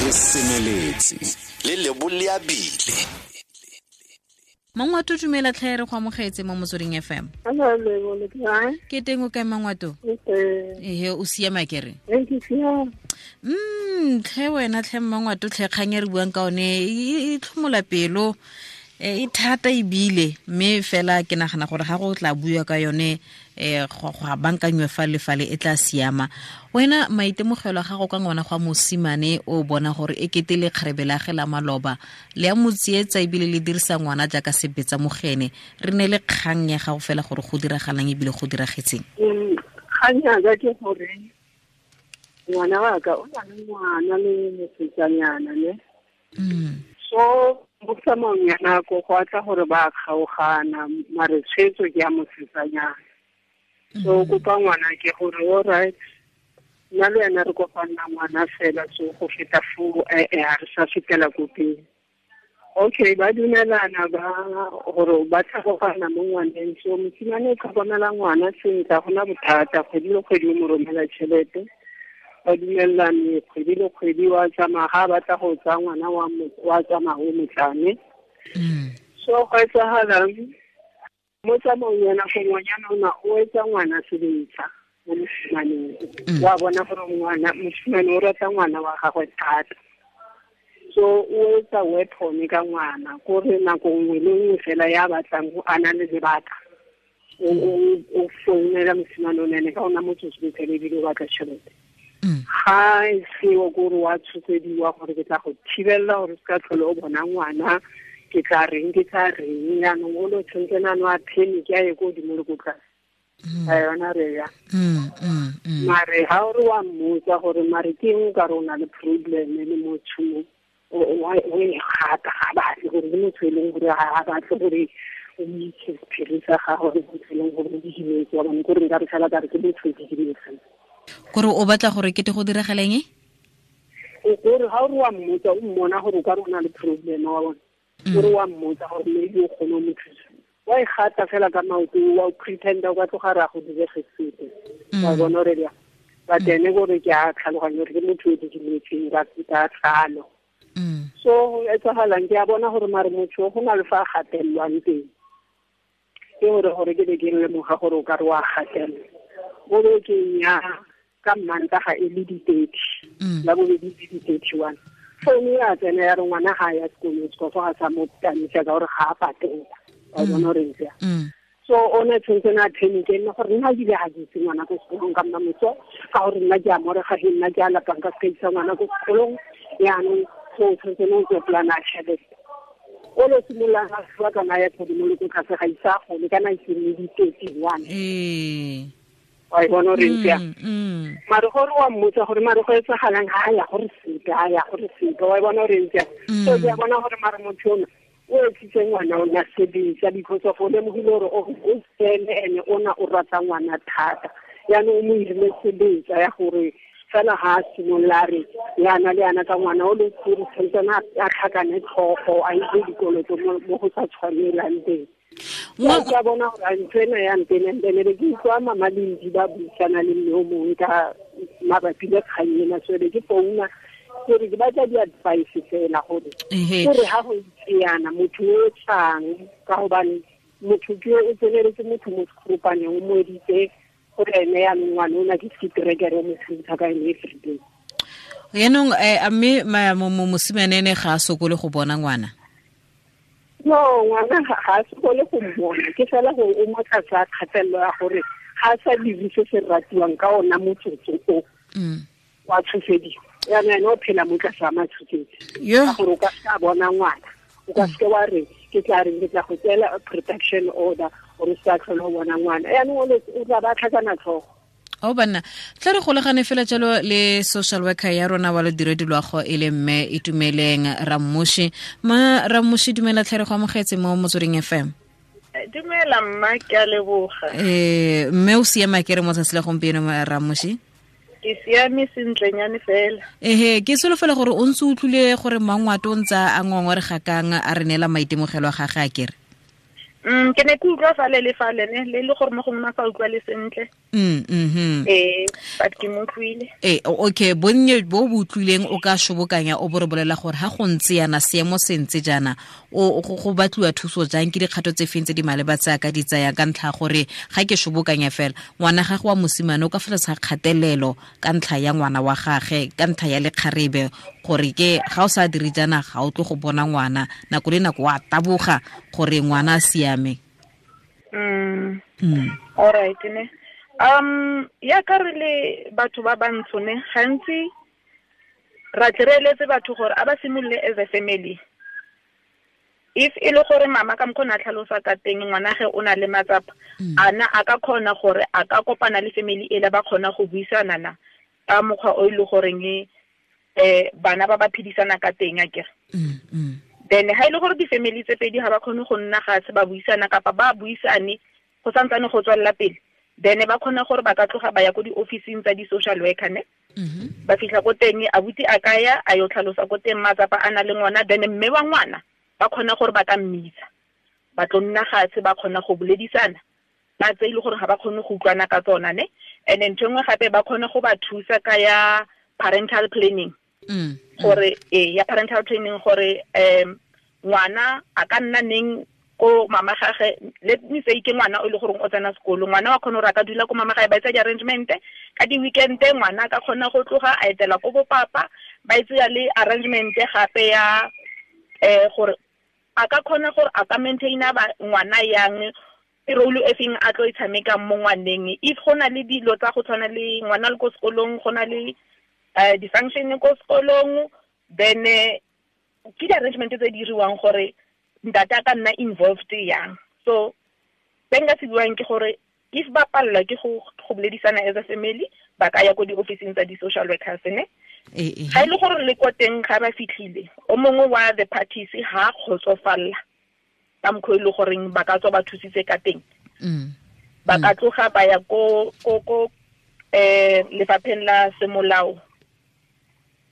Re semeletse le leboleabile. Mangwato, dumela tlhe, re go amogetse mo Motsweding FM. Ke teng, o kae, Mangwato? Ehe, o siama kere? Tlhe wena, tlhe Mmangwato, tlhe kgang e re buang ka one e tlhomola pelo, e thata ebile, mme fela ke nagana gore ga go tla bua ka yone, go a bankanywe fa le fale, e tla siama. Wena, maitemogelo a gago ka ngwana gwa mosimane o bona gore e kete le kgarebe la ge la maloba le a mo tsietsa ebile le dirisa ngwana jaaka sebetsa mogene, re ne le kgang ya gago fela gore go diragalang ebile go diragetseng? Kgang yaka ke gore ngwana wa ka o na le ngwana le mosetsanyana ne. So mo tsamaong ya nako go atla gore ba kgaogana, mare tshwetso ke ya mosetsanyana. So kopa ngwana ke gore, all right, nna le wena re kopanna ngwana fela, so go feta foo ga re sa fetela ko pele. Okay, ba dumelana ba gore ba tlhagogana mo ngwaneng. So mosimane o tlhokomela ngwana sentle, ga gona bothata. Kgwedi le kgwedi o mo romela tšhelete, ba dumelelane. Kgwedi le kgwedi wa tsamaya, ga a batla go tsaya ngwana wa tsamaya o motlane. So go etsagalang mo tsamaong ya nako, ngwanyana ona o etsa ngwana sebetsa mo mosimaneng. Wa bona gore ngwana mosimane o rata ngwana wa gagwe thata, so o etsa weapon ka ngwana, kore nako nngwe le nngwe fela ya batlang go ana le lebaka, o founela mosimane o nene ka ona motsotso bophele, ebile o batla tšhelete. Ga e seo, kore wa tshosediwa gore ke tla go thibelela gore se ka tlhole o bona ngwana, ke tla reng, ke tla reng. Yaanong o le tshwanetse nano a panic, a ye ko godimo le ko tlase a yona re ya. Mare ga o re wa mmotsa gore mare ke eng, o ka re o na le problem le motho mo o e gata, ga batle gore ke motho e leng gore ga batle gore o itse sephiri sa gago, ke motho e leng gore o didimetse wa bone, kore nka re fela ka re ke motho o didimetseng. Kore o batla gore kete go diragaleng? Kore ga o re wa mmotsa, o mmona gore o ka re o na le problem wa bone. O re wa mmotsa gore maybe o kgone o mo thusa, wa e gata fela ka maoto, wa pretenda o ka tloga re a go direge sepe. Wa bona gore ya, but ene kore ke a tlhaloganya gore ke motho o didimetseng ka tlhalo. So go etsagalang, ke a bona gore mare motho go na le fa a gatelelwang teng, ke gore ke be ke lemoga gore o ka re wa gatelelwa mo bekeng ya ka Mmantaga e le di-30, la bobedi le di-31, founu ya tsena ya re ngwana ga ya sekolong, sekofo ga sa mo tamisa ka gore ga a patela. Wa bona gore ntse. So o ne tshwanetse na panic nne gore nna ebile ga ke itse ngwana ko sekolong ka nna moso, ka gore nna ke a morega, he nna ke a lapang ka seka isa ngwana ko sekolong. Yaanong so tshwanetse ne o tswe polana ya tšhelete, o lo simololang a fiwa kana ya godimo le ko tlase, ga isa gole kana e sene di-31. Wa e bona gore ntse yang. Mare gore wa mmotsa gore mare go etsagalang, ga a ya gore sepe, a ya gore sepe. Wa e bona gore ntse yang. So ke a bona gore mare motho ona o etsitse ngwana o na sebetsa because of o lemogile gore o sele ene ona o rata ngwana thata. Yaanong o mo irile sebetsa ya gore fela ga a simolola re yana le yana ka ngwana o le gore tshwantsane a tlhakane tlhogo, a itse dikoloto mo go sa tshwanelang teng. Ke a bona gore ntho ena ya ntenentene be ke utlwa mama Lendi ba buisana le mme o mongwe ka mabapi le kgang ena, so be ke founa gore ke batla di-advice fela gore ga go itse yana motho o tlang, ka gobane motho ke o tseneletse motho mo sekgopaneng, o mo editse gore ene yaanong ngwane o na ke setrekere, o mo thusa ka ene everyday. Yaanong a mme mosimane ene ga a sokole go bona ngwana? No, ngwana ga a sokole go mmona, ke fela gore o mo tlase a kgatelelo ya gore ga a sa dire se se ratiwang ka ona motsotso o, wa tshosediwa. Yaanong ene o phela mo tlase a matshosetsi ka gore o ka se a bona ngwana, o ka seke wa re ke tla reng, ke tla go tseela protection order gore o se ka tlhole o bona ngwana. Yaanong o tla ba tlhakana tlhogo. O banna, tla re golagane fela jalo le social worker ya rona wa lodiredi loago, e le mme Itumeleng Rammoshi. Ma Rammoshi, dumela tlhere, go amogetse mo Motsweding FM. Dumela mma, ke a leboga. Mme o siama ke re mo tsatsi la gompieno, Rammoshi? Ke siame sentlenyane fela. Ehe, ke solofela gore o ntse utlwile gore Mangwato o ntse a ngongorega kang, a re neela maitemogelo a gage a kere. Ke ne ke utlwa fale le fale ne le le gore mo gongwe ma sa utlwa le sentle. But ke mo utlwile. Okay, bonnye bo bo utlwileng o ka shobokanya o bo re bolela gore ha go ntse yana seemo se ntse jaana o go batliwa thuso jang, ke dikgato tse feng tse di maleba tse a ka di tsayang ka ntlha gore ga ke shobokanya fela ngwana gagwe wa mosimane o ka fa tlase ga kgatelelo ka ntlha ya ngwana wa gagwe, ka ntlha ya lekgarebe, gore ke ga o sa dire jaana ga o tle go bona ngwana nako le nako wa taboga gore ngwana a siame. All right ne. Ya ka re le batho ba bantsho ne gantsi ra tle re eletse batho gore a ba simolole as a family. If e le gore mama ka mokgona a tlhalosa ka teng ngwanage o na le matsapa, ana a ka kgona gore a ka kopana le family ele ba kgona go buisana na ka mokgwa o e le goreng bana ba ba phedisana ka teng akere. Then ha ile gore di-family tse pedi ha ba kgone go nna ga se ba buisana kapa ba buisane go santsane go tswella pele, then ba kgona gore ba ka tloga ba ya ko di-officing tsa di-social worker ne. Ba fitlha ko teng abuti a ka ya a yo tlhalosa ko teng matsapa a na le ngwana, then mme wa ngwana ba kgona gore ba ka mmitsa ba tlo nna gatshe ba kgona go boledisana ba tse ile gore ga ba kgone go utlwana ka tsona ne. And then ntho nngwe gape ba kgone go ba thusa ka ya parental planning. Gore ya parental training gore ngwana a ka nna neng ko mama gagwe, let me say ke ngwana o le gore o tsena sekolo, ngwana wa kgona gore a ka dula ko mama gagwe ba etsa di-arrangement ka di-weekend, ngwana a ka kgona go tloga a etela ko bopapa, ba etsa le arrangement gape ya gore a ka kgona gore a ka maintaina ngwana yang, role e feng a tlo e tshamekang mo ngwaneng. If go na le dilo tsa go tshwana le ngwana le ko sekolong, go na le di-function ko sekolong, then ke di-arrangement tse di diriwang gore ntate a ka nna involved yang. So se nka se buang ke gore if ba palelwa ke go boledisana as a family, ba ka ya ko di-officing tsa di-social workers ne. Ga e le gore le ko teng ga ba fitlhile o mongwe wa the parties ha kgotsofalla ka mokgwa e le goreng ba ka tswa ba thusitse ka teng, ba ka tloga ba ya ko lefapheng la semolao,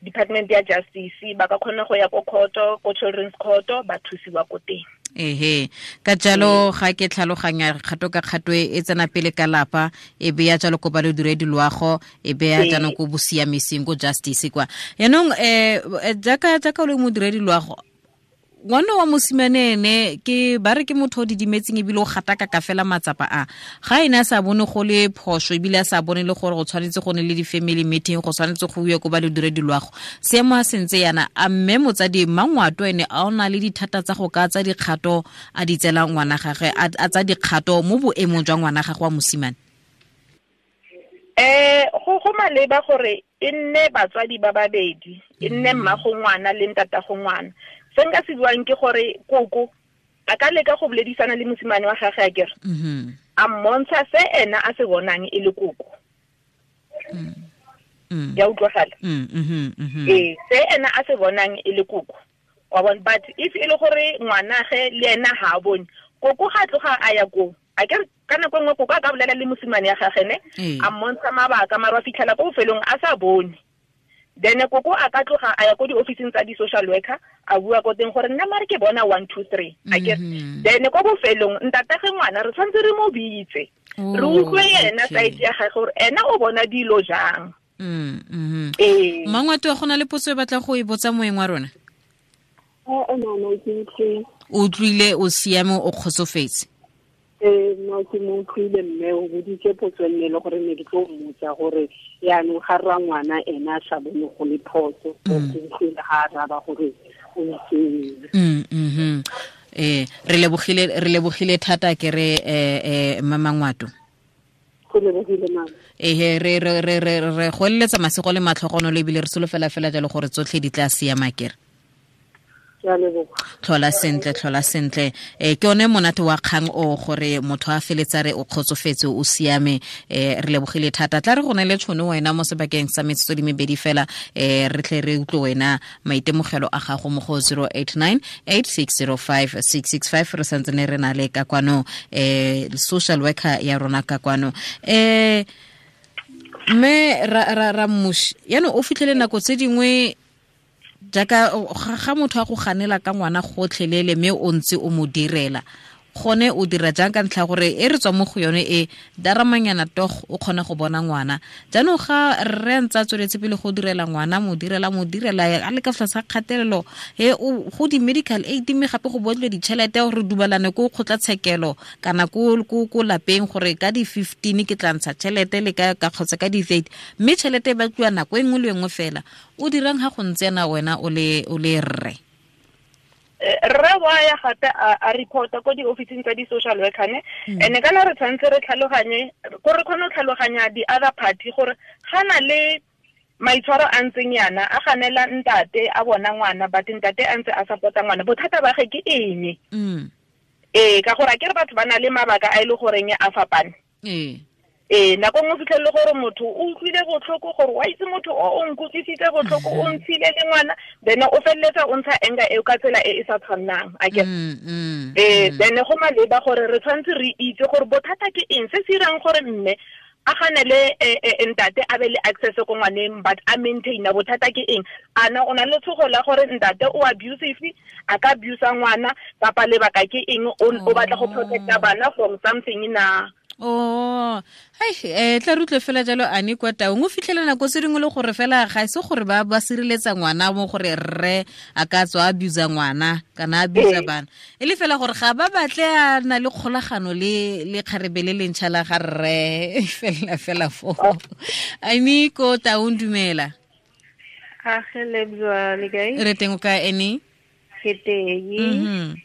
Department ya Justice, ba ka kgona go ya ko court, ko children's court, ba thusiwa ko teng. Ehe, ka jalo ga ke tlhaloganya kgato ka kgato e tsena pele ka lapa, e beya jalo ko ba le diredi loago, e beya jaanong ko bosiamising ko justice kwa. Yaanong jaaka o le modiredi loago, ngwana wa mosimane ene ke ba re ke motho o didimetseng ebile o gataka ka fela matsapa a ga ene a sa bone go le phoso, ebile a sa bone le gore go tshwanetse go ne le di-family meeting, go tshwanetse go uwe ko ba le diredi loago. Seemo a sentse yana, a mme motsadi Mmangwato ene a o na le dithata tsa go ka tsa dikgato a di tsela ngwana gagwe, a tsa dikgato mo boemong jwa ngwana gagwe wa mosimane? Go maleba gore e nne batswadi ba babedi, e nne mmago ngwana le ntatago ngwana. Se nka se buang ke gore koko a ka leka go boledisana le mosimane wa gagwe akere, a mmontsha se ena a se bonang e le koko. Ya utlwagala? Se ena a se bonang e le koko wa bona. But if e le gore ngwanage le ena ha a bone, koko ga tloga a ya koo akere, ka nako nngwe koko a ka bolela le mosimane ya gagwe ne, a mmontsha mabaka, mara wa fitlhela ko bofelong a sa bone. Then koko a ka tloga a ya ko di-officing tsa di-social worker, a bua ko teng gore nna mare ke bona 1 2 3 akere. Then ko bofelong ntatage ngwana re tshwanetse re mo bitse, re utlwe yena side ya gagwe gore ena o bona dilo jang. Mmangwato, go na le potso e batla go e botsa moeng wa rona? O utlwile, o siame, o kgotsofetse? No, ke mo utlwile mme o boditse potso nne le gore ne ke tlo mmotsa gore yaanong ga rra ngwana ena a sa bone go le phoso, ke utlwile ga a raba gore o itseng. Re lebogile thata ke re Mmangwato. Go lebogile mama. Re re go eletsa masego le matlhogonolo, ebile re solofela fela jalo gore tsotlhe di tla siama kere. Tlhola sentle, tlhola sentle. Ke one monate wa kgang o gore motho a feletsa re o kgotsofetse, o siame. Re lebogile thata. Tla re go ne le tšhono wena mo sebakeng sa metsotso di mebedi fela, re tle re utlwe wena maitemogelo a gago mo go 089 8605 665. Re santse ne re na le ka kwano social worker ya rona ka kwano. Mme ra mmushi yaanong o fitlhele nako tse dingwe jaaka ga motho a go ganela ka ngwana gotlhelele mme o ntse o mo direla, Gone o dira jang ka ntlha gore e re tswa mo go yone e daramanyana tog o kgona go bona ngwana. Jaanong ga rre ntse a tsweletse pele go direla ngwana, mo direla a le ka fa sa kgatelelo e go di medical aid, mme gape go botlwe ditšhelete gore dumalane ko kgotlatshekelo kana ko lapeng gore ka di 15 ke tla ntsha tšhelete le ka kgotsa ka di 30, mme tšhelete e batliwa nako e nngwe le nngwe fela. O dirang ga go ntse yana wena o le rre? Rre wa ya gape a reporta ko di-officing tsa di-social worker ne, and kana re tshwanetse re tlhaloganye ko re kgone go tlhaloganya di-other party gore ga na le maitshwaro a ntseng yana a ganela ntate a bona ngwana, but ntate a ntse a support-a ngwana, bothata ba ge ke eng? Ee, ka gore a ke re batho ba na le mabaka a e le goreng a fapane. Ee, nako nngwe fitlhelele gore motho o utlwile botlhoko gore wa itse motho o nkutlwisitse botlhoko, o ntshile le ngwana, then o feleletsa o ntsha anger eo ka tsela e e sa tshwannang, a ke then go maleba gore re tshwanetse re itse gore bothata ke eng se se irang gore mme a ganele ntate a be le access ko ngwaneng, but a maintaina bothata ke eng. Ana o na le tshogo la gore ntate o abusive, a ka abusa ngwana, kapa lebaka ke eng, o batla go protecta bana from something na. Oh, hai, tla rutle fela jalo ane kwa taung o fitlhela nako tse dingwe le gore fela ga se gore ba sireletsa ngwana mo gore rre a ka tswa abusa ngwana kana abusa bana, e le fela gore ga ba batle a na le kgolagano le kgarebe le lentšha la ga rre fela fela fo. Ane ko taung, dumela. Age lebzwa le kae? Re teng o kae ene? Ke teng.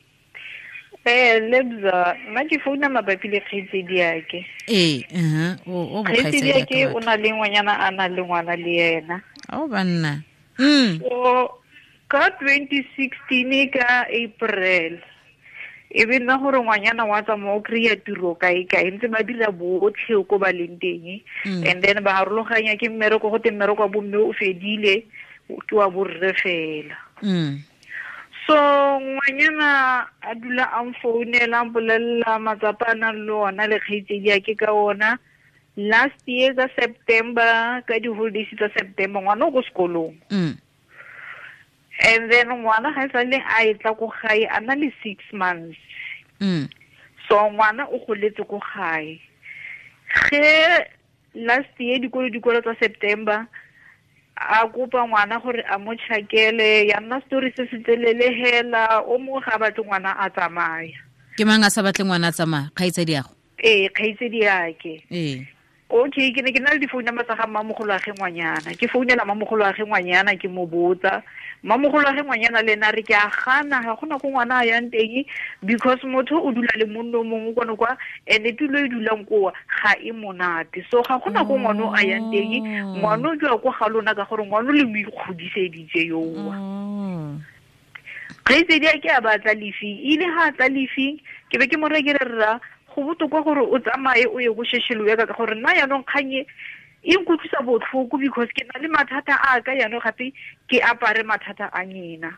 Lebza, nna ke founa mabapi le kgaitsedi yake. Ee, o kgaitsedi yake o na le ngwanyana a na le ngwana le yena. O banna. So ka 2016 ka April, e be nna gore ngwanyana wa tsamaya o kry-a tiro kae kae, ntse ba dira botlhe ko ba leng teng. And then ba harologanya ke mmereko, go te mmereko wa bomme o fedile, ke wa borre fela. So ngwanyana a dula a mfounela, a mpolelela matsapa a nang le ona le kgaitsedi yake ka ona. Last year ka September, ka di-holidays tsa September, ngwana o ko sekolong. And then ngwana ga e sale a e tla ko gae a na le 6 months. So ngwana o goletse ko gae. Ge last year dikolo tsa September, a kopa ngwana gore a mo tšhakele, ya nna story se se telele hela, o mongwe ga a batle ngwana a tsamaya. Ke mang a sa batle ngwana a tsamaya? Kgaitsedi yago? Ee, kgaitsedi yake. Ee. Okay, ke ne ke na le difounu number tsa ga mmamogolo wa ge ngwanyana. Ke founela mmamogolo wa ge ngwanyana, ke mo botsa. Mmamogolo wa ge ngwanyana le ena re ke a gana, ga gona ko ngwana a yang teng, because motho o dula le monno o mongwe kwano kwa, and tulo e dulang koa ga e monate. So ga gona ko ngwana a yang teng, ngwana o dula ko ga lona ka gore ngwana le mo ikgodiseditse yoa. Kgaitsedi a ke a batla lefi, ile ha a tla lefi, ke be ke mo reye ke re rra, go botoka gore o tsamaye o ye go shesheloe ka gore nna jaanong kgang e nkutlwisa botlhoko, because ke na le mathata a ka jaanong gape ke apare mathata a nyena.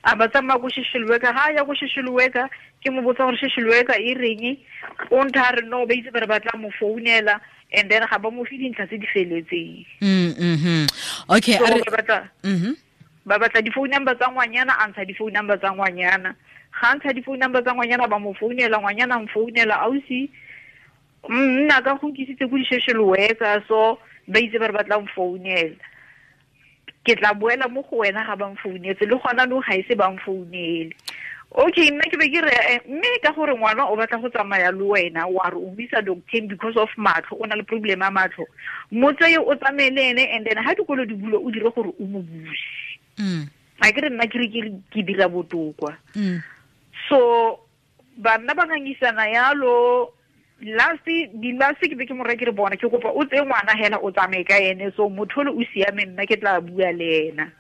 A ba tsamaya ko shesheloe ka, ga ya ko shesheloe ka, ke mo botsa gore shesheloe ka e reng, o ntha a re no, ba itse ba re ba tla mo founela, and then ga ba mo fe dintlha tse di feletseng. Okay, ba batla di-phone number tsa ngwanyana, a ntsha di-phone number tsa ngwanyana. Ga ntsha di-phone number tsa ngwanyana, ba mo founela, ngwanyana a mfounela, ausi nna ka go nkisitse ko di-social worker, so ba itse ba re ba tla mfounela. Ke tla boela mo go wena ga ba mfounetse, le gona no ga ise ba mfounele. Okay, nna ke be ke re mme ka gore ngwana o batla go tsamaya le wena, wa re o mo isa doctor because of matlho, o na le problem ya matlho, mo tseye o tsamaye le ene, and then ha dikolo di bulo o dire gore o mo buse. A ke re nna ke re ke dira botokwa. So banna ba ngangisana yalo. Last ke be ke mo reye ke re bona, ke kopa o tseye ngwana hela o tsamaye ka ene, so motho o siame, nna ke tla bua le ena.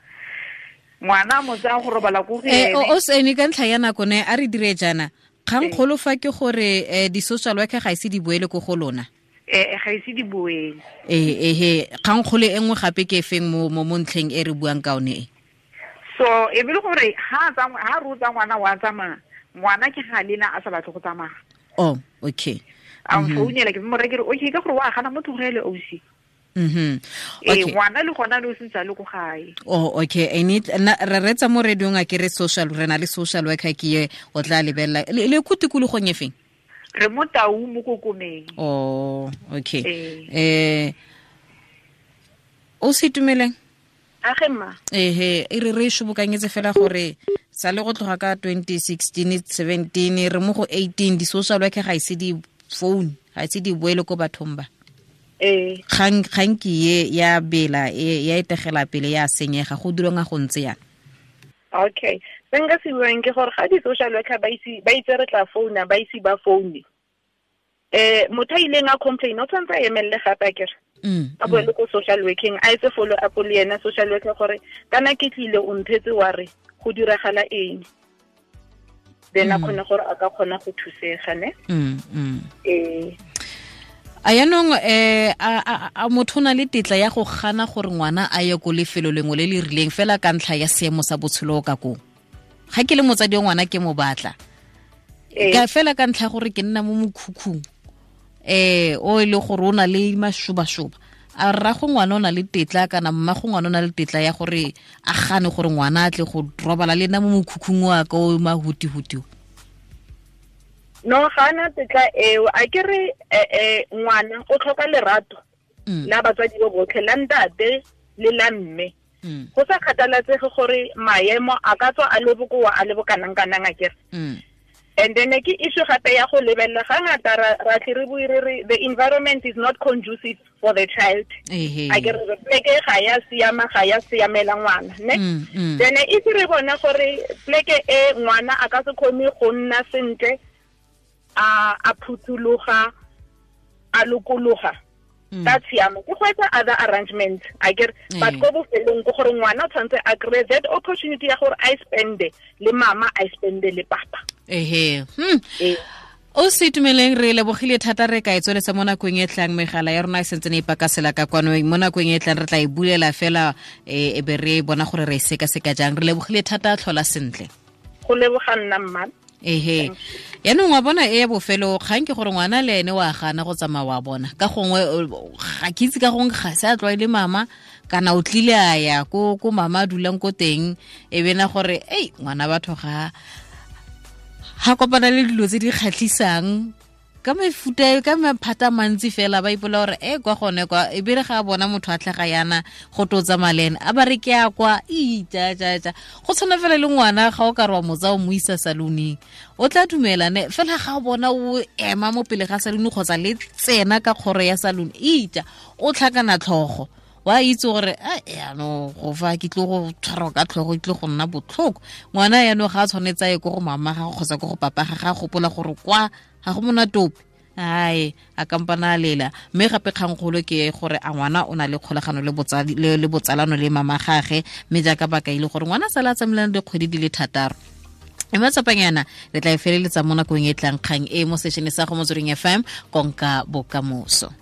Ngwana mo tsaya go robala ko go ene. O sene ka ntlha ya nako ne a re dire jaana. Kgangkgolo fa ke gore di-social worker ga ise di boele ko go lona. Ga ise di boele. Ee, kgangkgolo e nngwe gape ke efeng mo ntlheng e re buang ka one e? So e be le gore ha re o tsa ngwana wa tsamaya, ngwana ke ga lena a sa batle go tsamaya. Oh, okay. A mfounela ke mo reye ke re okay, ka gore wa gana mo tlogele ausi. Ee, ngwana le gona le o sentse a le ko gae. Oh, okay. Re retsa mo radiong a ke re social, re na le social worker ke ye o tla lebelela le ko tikologong e feng? Re mo Tau mo Kokomeng. Oh, okay. O se itumeleng? Age mma. Ehe, e re shobokanyetse fela gore sa le go tloga ka 2016 17 re mo go 18 di social worker ga ise di phone, ga ise di boele ko bathong ba. Kgang ke ye ya bela ya etegela pele ya senyega go dirwang go ntse yana. Okay. Se nka se buang ke gore ga di social worker ba itse re tla founa, ba ise ba foune. Motho a ileng a complain o tshwanetse a emelele gape akere. A boele ko social working, a etse follow up le yena social worker gore kana ke tlile o nthetse wa re go diragala eng. Then a kgone gore a ka kgona go thusega ne. A yanong a motho na le tetla ya go gana gore ngwana a ye ko lefelo lengwe le le rileng fela ka ntlha ya seemo sa botshelo ka koo. Ga ke le motsadi wa ngwana ke mo batla. Ka fela ka ntlha gore ke nna mo mokhukhung o e le gore o na le mashoba-shoba. A rrago ngwana o na le tetla kana mmago ngwana o na le tetla ya gore a gane gore ngwana a tle go robala le nna mo mokhukhung wa ka o mahuti-huti. No, ga ana tetla eo. A ke re ngwana o tlhoka lerato la batswadi bo botlhe, la ntate le la mme. Go sa kgathalatsege gore maemo a ka tswa a le bokoa a le bokanang-kanang a kere. And then ke issue gape ya go lebelela ga ngata ra tle re bue re re the environment is not conducive for the child. A ke re pleke ga ya siama, ga ya siamela ngwana, ne? Then if re bona gore pleke e ngwana a ka se kgone go nna sentle, a phuthuloga, a lokologa, ka tshiamo ke go etsa other arrangements a ke re. But ko bofelong ke gore ngwana o tshwanetse a kry that opportunity ya gore a spende le mama, a spende le papa. O se itumeleng, re lebogile thata. Re ka e tsweletsa mo nakong e tlang. Megala ya rona e sentse ne e pakasela ka kwano. Mo nakong e tlang re tla e bulela fela e be re bona gore re e sekaseka jang. Re lebogile thata, tlhola sentle. Go leboga nna mma. Ehe. Yaanong wa bona e ya bofelo kgang ke gore ngwana le ene wa gana go tsamaya wa bona. Ka gongwe ga ke itse, ka gongwe ga se a tlwaele mama kana o tlile a ya ko mama a dulang ko teng, e bena gore ei ngwana batho ga kopana le dilo tse di kgatlhisang ka mefuta ka maphata mantsi fela, ba ipola gore e kwa gone kwa, e bere ga a bona motho a tlhaga yana go to tsamaya le ene a ba re ke a kwa ija ja ja. Go tshwana fela le ngwana ga o ka re wa motsa o mo isa saloneng, o tla dumela ne fela ga o bona o ema mo pele ga salone kgotsa le tsena ka kgoro ya salone, ija o tlhakana tlhogo, wa itse gore a yaanong go fa ke tlo go tshwarwa ka tlhogo, ke tlo go nna botlhoko. Ngwana yaanong ga a tshwanetse a ye ko go mama ga kgotsa ko go papa ga gopola gore kwa ga go monate ope, ai a kampana a lela. Mme gape kgangkgolo ke gore a ngwana o na le kgolagano le botsadi le botsalano le mama gage, mme jaaka ba kaile gore ngwana sala a tsamaelana dikgwedi di le 6. E matsapanyana re tla e feleletsa mo nakong e tlang kgang e mo sešene sa go Motsweding FM, konka bokamoso.